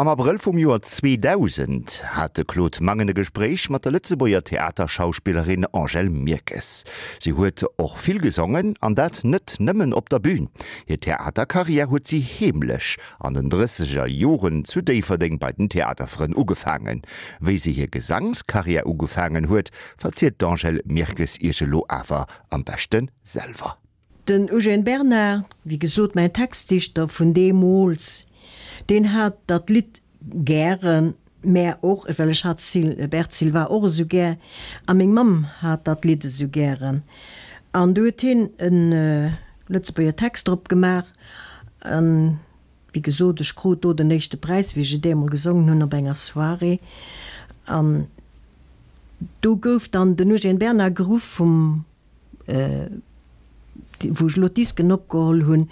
Am Abrëll vum Joer 2000 hat de Claude Mangen e Gespréich mat der Lëtzebuerger Theaterschauspillerin Angèle Mirkes. Si huet och vill gesongen, an dat net nëmmen op der Bün. Hir Theaterkarriär huet si heemlech an den drësseger Joren zu Déifferdeng bei den Theaterfrënn ugefaangen. Wéi si hir Gesangskarriär ugefaangen huet, verzielt d'Angèle Mirkes iech elo awer am beschte selwer. Den Eugène Bernard, wéi gesot mäin Textdichter vun deemools, deen hat dat Lidd gären, mä och, well ech hat Bert Silva och esou gär, a meng Mamm hat dat Lidd esou gären. An du huet hien e Lëtzebuerger Text drop gemaach. An wéi gesot, ech krut do den éischte Präis, wéi ech et eemol gesongen hunn op enger Soirée. An do gouf dann den Eugène Bernard geruff vum wou ech elo d'Disken opgeholl hunn,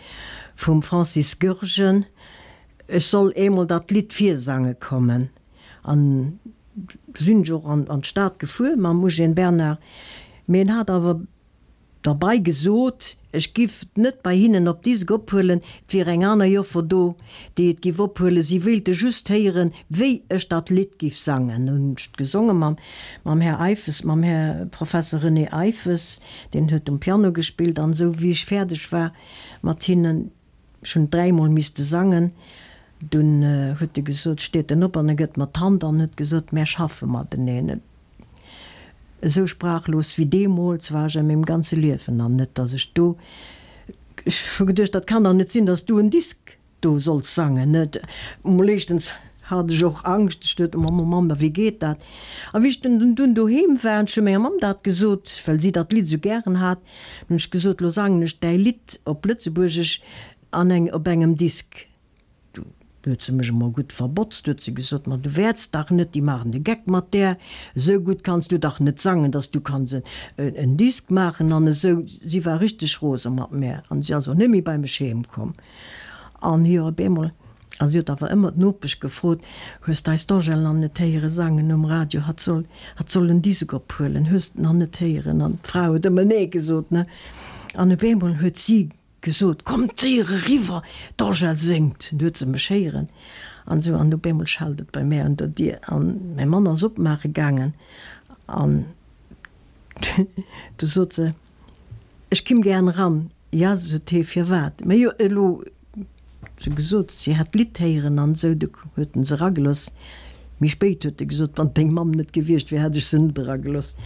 vum Francis Goergen, ech soll eemol dat Lidd virsange kommen. An du sinn ech och an d'Stad gefuer mam Eugène Bernard, mee en hat awer derbei gesot, ech giff et net bei hinnen op Disk ophuelen, et wier eng aner Joffer do, déi et giff ophuelen, si wéilte just héieren, wéi ech dat Lidd giff sangen. Hunn ech et gesonge mam mam Här Eiffes, mam Här Professor René Eiffes, deen huet um Piano gespillt an esou. Wéi ech fäerdeg war mat hinnen, ech hunn et dräimol misste sangen, dunn huet e gesot, steet en op an e gëtt mer d'Hand an huet gesot, mär schaffe mateneen. Esou sprachlos wéi deemools war ech a mengem ganze Liewen nach net, dass ech do, ech hu geduecht, dat kann dach net sinn, dass du en Disk do solls sangen, net? Mol éischtens hat ech och Angscht, ech duet, Mamm, oh Mamm, wéi geet dat? A wéi ech dunn dunn doheem war, an ech hu menger Mamm dat gesot, well si dat Lidd esou gären hat, hunn ech gesot, Lo sangen ech däi Lidd op Lëtzebuergesch an eng op engem Disk. Du huet se mech emol gutt verbotzt, huet se gesot, ma du wäerts dach net, déi maachen de Geck mat där, esou gutt kanns du dach net sangen, dass du kanns en Disk maachen an esou. Si war richteg rose mat mär an si ass och net méi bei mech heem komm. An jo, op eemol, a si huet awer ëmmer d'Nopesch gefrot, Hues d'eis d'Angèle nach net héiere sangen um Radio? Hatt soll, hatt soll en Disk ophuelen, hues d'nach net héieren? An d'Fra huet ëmmer Nee gesot, ne? An op eemol huet si gesot, Kommt séier eriwwer, d'Angèle séngt! Du huet se mech héieren an esou. An op eemol schellt et bei mär un der Dier an mäi Mann ass opmaache gaangen an du sot se, Ech kimm gären eran. Ja, sot hee, firwat? Mä jo, elo huet se gesot, si hätt d'Lidd héieren an esou. Du huet en se eragelooss. Méi spéit huet e gesot, Wann deng Mamm net gewiescht wier, hätt ech se net eragelooss.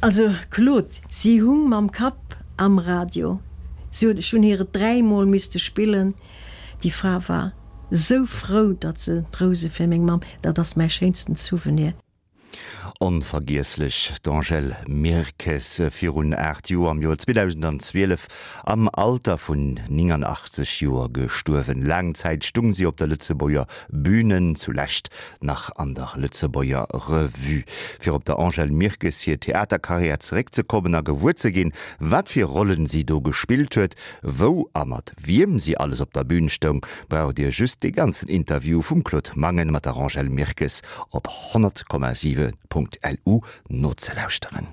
Also, Claude, si hung mam Kapp am Radio. Si huet, ech hunn hir et dräimol misste spillen. Déi Fra war esou frou, datt se d'Rouse fir meng Mamm, dat ass mäi schéinsten Souvenir. Onvergiesslech, d'Angèle Mirkes, virun 8 Joer, am Joer 2012, am Alter vun 89 Joer gestuerwen. Laang Zäit stung si op der Lëtzebuerger Bühne, zulescht nach an der Lëtzebuerger Revue. Fir op der Angèle Mirkes hir Theaterkarriär zeréckzekommen a gewuer ze ginn, wat fir Rollen si do gespillt huet, wou a mat wiem si alles op der Bühn stoung, braucht Dir just dee ganzen Interview vum Claude Mangen mat der Angèle Mirkes op 100,7.lu nozelauschteren.